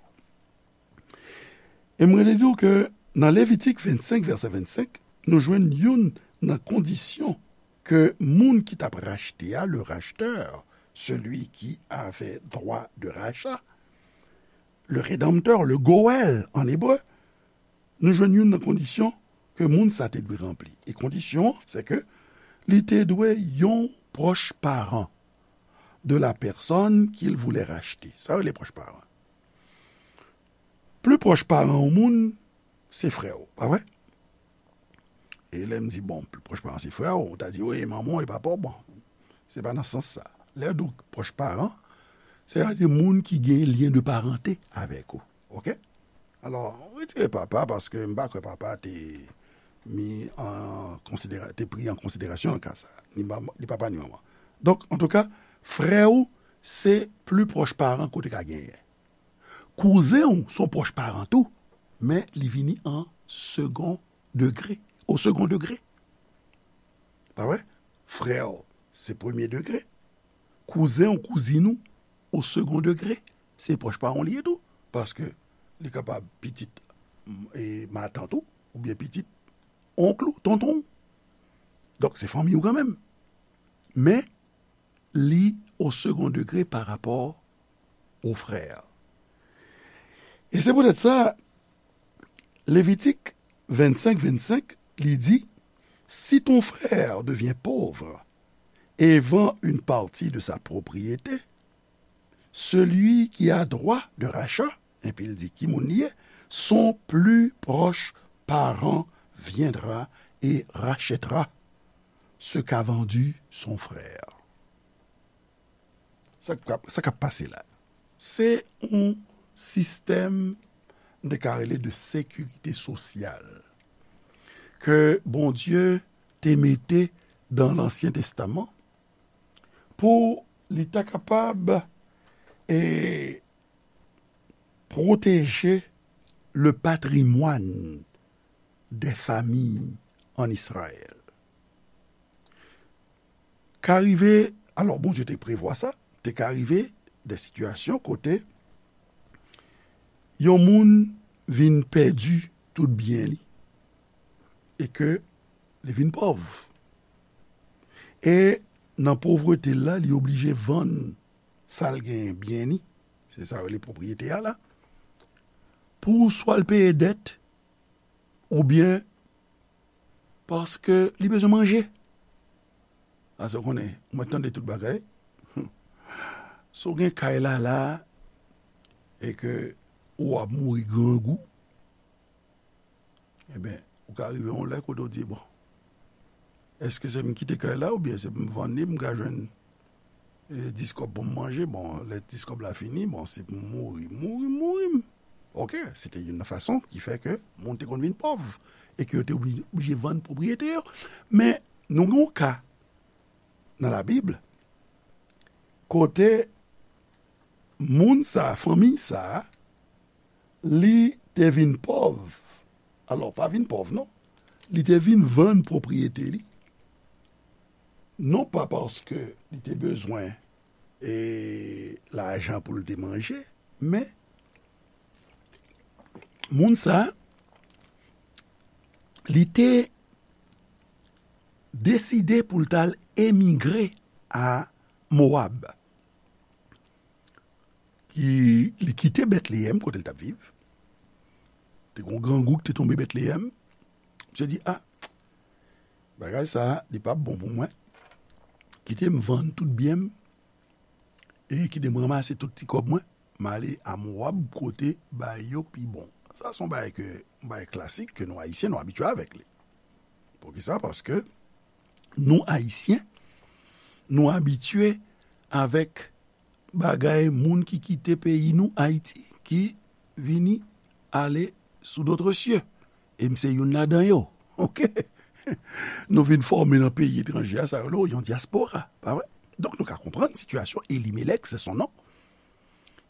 E mwen vle di w ke nan Levitik vennsenk, vèsè vennsenk, nou jwenn youn nan kondisyon ke moun ki t ap rachte a, le racheteur, celui qui avait droit de rachat, le rédempteur, le goel an ebre, nou jwenn youn nan kondisyon ke moun sa te dwe ranpli. E kondisyon an, se ke li te dwe yon pwòch paran de la personne qu'il voulait racheter. Sa yo rele pwòch paran. Pli pwòch paran yon moun, se frè w, pa vre? E lè m di, bon, pli pwòch paran se frè w, ou ta di, wi, manman w e papa w, bon. Se pa nan sans sa. Lè donk pwòch paran, se a di moun ki gen lyen de parante avèk ou. Oke? Alò, retire papa, paske m pa kwè papa te mi an konsidera-, te pri an konsiderasyon nan ka sa. Ni pa, ni papa, ni manman. Donk, antouka, frè w, se pli pwòch paran ke w te ka genyen. Kouzen w, se yon pwòch paran tou, men li vini an second degré, au second degré. Pa vre? Frè w, se premye degre. Kouzen w, kouzin ou, au second degré. Se pwòch paran w li ye tou, paske li kapab pitit, m, e, matant ou, oubyen pitit onk ou, tonton w. Donk, se fanmi w kanmenm. Men, li au second degré par rapport au frère. E se poutèt sa, Levitik vennsenk vennsenk, li di, si ton frère devient pauvre et vend une partie de sa propriété, celui qui a droit de rachat, epi l di ki moun li ye, son plus proche parent viendra et rachètera ce qu'a vendu son frère. Sa k ap, sa k ap pase la? Se yon sistèm, m te ka rele, de sekirite sosyal ke Bondye te mete dan Lansyen Testaman pou li ta kapab, e, pwoteje le patrimoine des familles en Israël. Ka rive, alò, Bondye te prevwa sa, Te ka rive de sitiyasyon kote yon moun vin pèdi tout byen li e ke li vin pòv. E nan povrete l la, li oblije vann sa l genyen, byen li, se sa yo rele pwopriyete a la, pou swa l peye dèt oubyen paske li bezwen manje. Paske w konnen, mwen tande tout bagay. Si w gen kay la, la, e ke w ap mouri grangou, ebyen, ou ka rive yon lè kote w di, bon, èske se m kite kay la oubyen se pou m vann li, m ka jwenn e, dis kòb pou m manje, bon, lè dis kòb la fini, bon, se pou m mouri, mouri, mouri m. Oke, se te youn nan fason ki fè ke moun te konn vin pòv e ke yo te obli-, oblije vann pwopriyete yo. Men, nou gen yon ka nan Labib kote moun sa, fanmi sa, li te vin pòv. Alò, pa vin pòv, non. Li te vin vann pwopriyete li. Non pa paske li te bezwen, e, lajan pou l te manje, men moun sa, li te deside pou l t al emigre a Mowab. Ki, li kite Betleyèm, kote l t ap viv. Te gen yon grangou ki te tonbe Betleyèm. Misye di, a, bagay sa a, li p ap bon pou mwen. Kite m vann tout byen m, e kite m ranmase tout ti kòb mwen, m ale a Mowab, kote bagay yo pi bon. Sa se yon bagay ke, yon bagay klasik ke nou Ayisyen, nou abitye avèk li. Poukisa? Paske nou Ayisyen, nou abitye avèk bagay moun ki kite peyi nou, Ayiti, ki vini ale sou dòt sye. E m se youn ladan yo. Oke? Nou vin fòme nan peyi etranje a, sa yo rele yon dyaspora, pa vre? Donk, nou ka konprann sitiyasyon Elimelèk, se son non,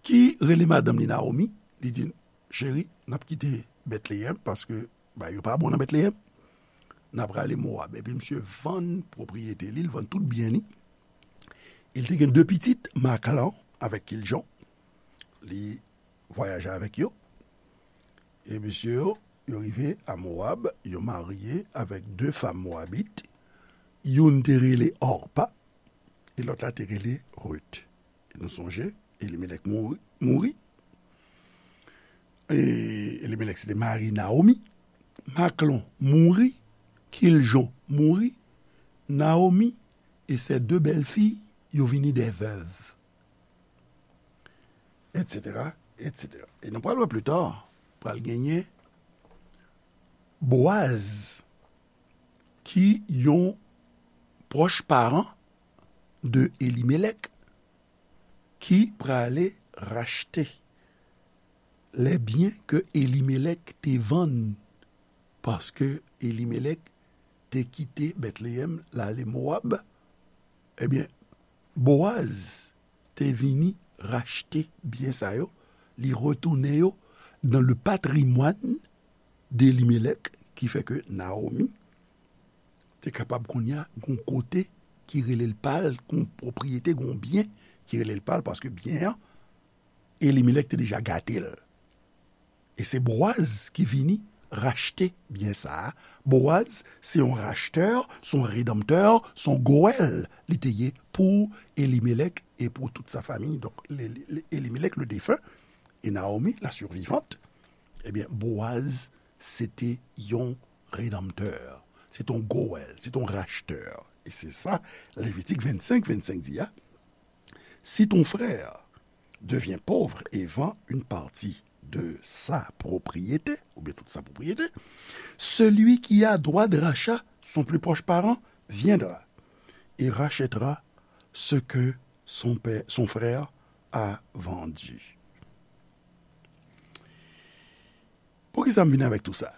ki rele madanm li Nawomi, li di, cheri, n ap kite Betleyèm, paske bagay yo pa bon nan Betleyèm. N ap rale Mowab. Epi misye vann pwopriyete li, li vann tout byen li. E li te gen de pitit, Maklon avèk Kiljon. Li vwayaje avèk yo. E mesye yo, yo rive a Mowab, yo marye avèk de fanm mowabit. Youn te rele Òpa, e lòt la te rele Rit. E nou sonje, Elimelèk mouri, mouri. E Elimelèk se te mari Nawomi. Maklon mouri, Kiljon mouri, Nawomi e ses deux belles filles, yo vini des veuves, et cetera, et cetera. E nou pral wè pli ta, pral genyen Boaz, ki yon pwòch paran de Elimelèk, ki prale rachte les biens ke Elimelèk te vann, paske Elimelèk te kite Betleyèm, l ale Mowab. Ebyen, Boaz te vini rachte byen sa yo, li retounen yo dans le patrimoine d'Elimelèk, ki fè ke Nawomi te kapab kounye a gon kote ki rele l pa l, gon pwopriyete, gon byen ki rele l pa l, paske byen an, Elimelèk te deja gate l. E se Boaz ki vini rachte byen sa a. Boaz, se yon rachtè, se yon redanmtè, se yon goèl li te ye pou Elimelèk e pou tout sa fanmi. Donk, le, le, Elimelèk, le défunt, e Nawomi, la survivante, ebyen, Boaz, se te yon redanmtè. Se te yon goèl, se te yon rachtè. E se sa, Levitik vennsenk, vennsenk di a, si ton frère devient pauvre et vend une partie de sa propriété, oubyen tout sa pwopriyete, celui qui a droit de rachat, son plus proche parent, viendra et rachètera ce que son père, son frère a vendu. Poukisa m vin avèk tou sa?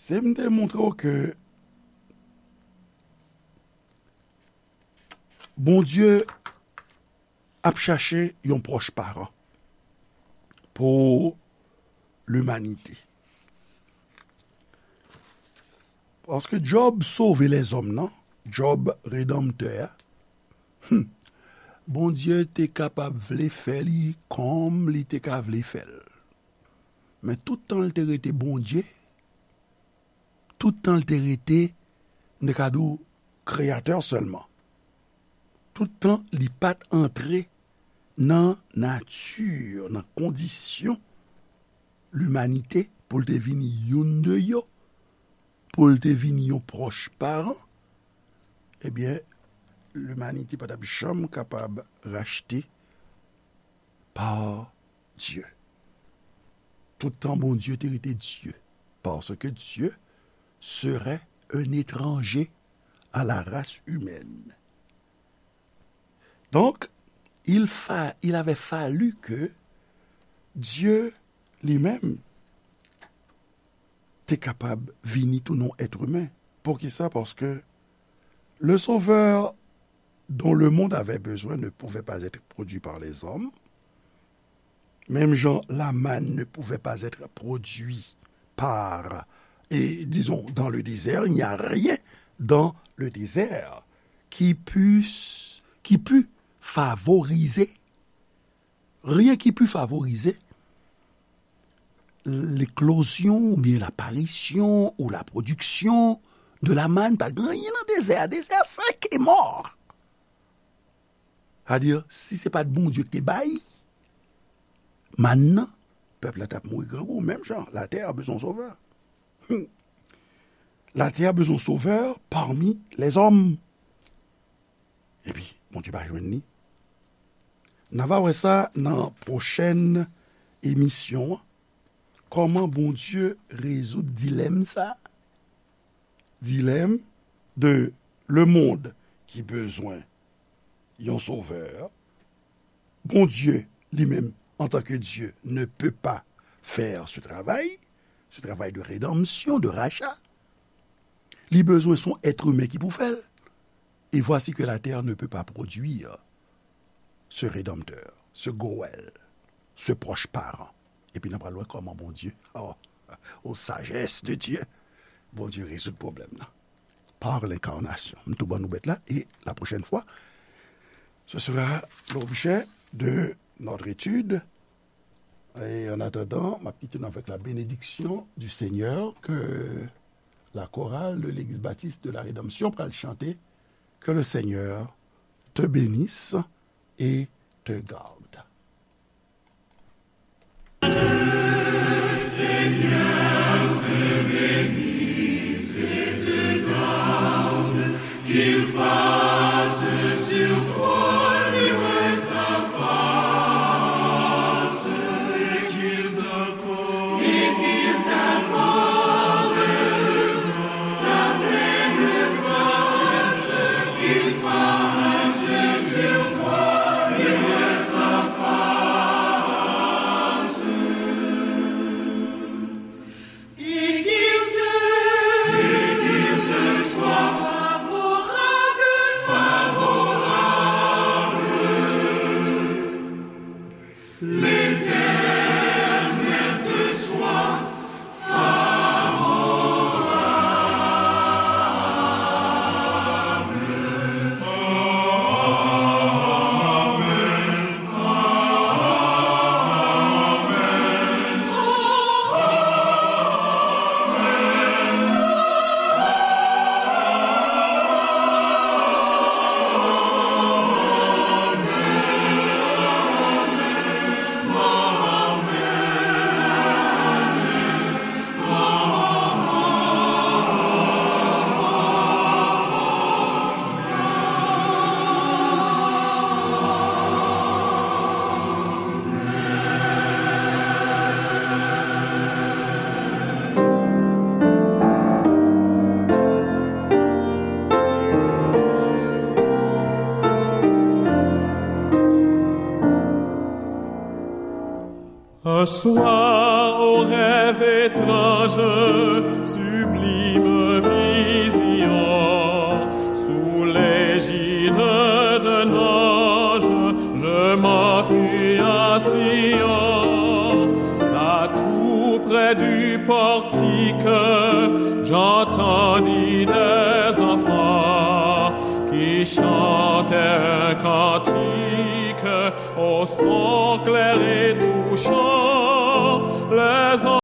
Se m te montre w ke Bondye ap chache yon pwòch paran pou limanite. Paske Jòb sove lèzòm nan, Jòb redanmtè a, hmm, Bondye te kapab vle fè li kòm li te ka vle fè l. Men tout tan l te rete Bondye, tout tan l te rete, m te ka di w, kreyatè sèlman. Tout tan li pa t antre nan nati, nan kondisyon limanite pou l te vin youn de yo, pou l te vin yon pwòch paran, ebyen, limanite pa t ap janm kapab rachte pa Dye. Tout tan Bondye te rete Dye, paske Dye serait un étranger à la race humaine. Donc, il fa, il avait fallu que Dieu lui-même te kapab vini tou nan èt imen. Poukisa? Paske le Sauveur dont le monde avait besoin ne pouvait pas être produit par les hommes. Même Jean Laman ne pouvait pas être produit par, et disons, dans le désert, il n'y a rien dans le désert qui puisse, qui put favoriser, rien qui put favoriser l'éclosion ou bien l'apparition ou la production de la manne. Pa gen anyen nan dezè a. Dezè a sèk e mò. Sa di, si se pa t Bondye ki te bay mann nan, pèp la t ap mouri grangou. Menm jan, la terre a bezwen yon sovè. La terre a bezwen yon sovè parmi les hommes. Epi, Bondye pa jwenn li. N a va wè sa nan pwochèn emisyon an. Kòman Bondye rezoud dilèm sa? Dilèm de le monde ki bezwen yon sovè. Bondye, li menm, antanke Dye, ne peut pas faire ce travail, ce travail de rédemption, de rachat. Li bezwen se yon èt imen ki pou fè l. Et voici que la terre ne peut pas produire ce rédempteur, ce Goël, ce proche parent. Epi n ap pral wè kòman Bondye, oh, aux sagesses de Dieu, Bondye rezoud pwoblèm nan par l'incarnation. M tou ban nou bèt la, et la prochaine fois, ce sera l'objet de notre étude. Et en attendant, m ap kite nou avec la bénédiction du Seigneur, que la chorale de l'Église Baptiste de la Rédemption pral chante. Que le Seigneur te bénisse et te garde. Un soir, au rêve étrange, sublime vision, sous l'égide d'un ange, je m'enfuis à Sion. Là, tout près du portique, j'entendis des enfants qui Chantez un cantique au son clair et touchant. Les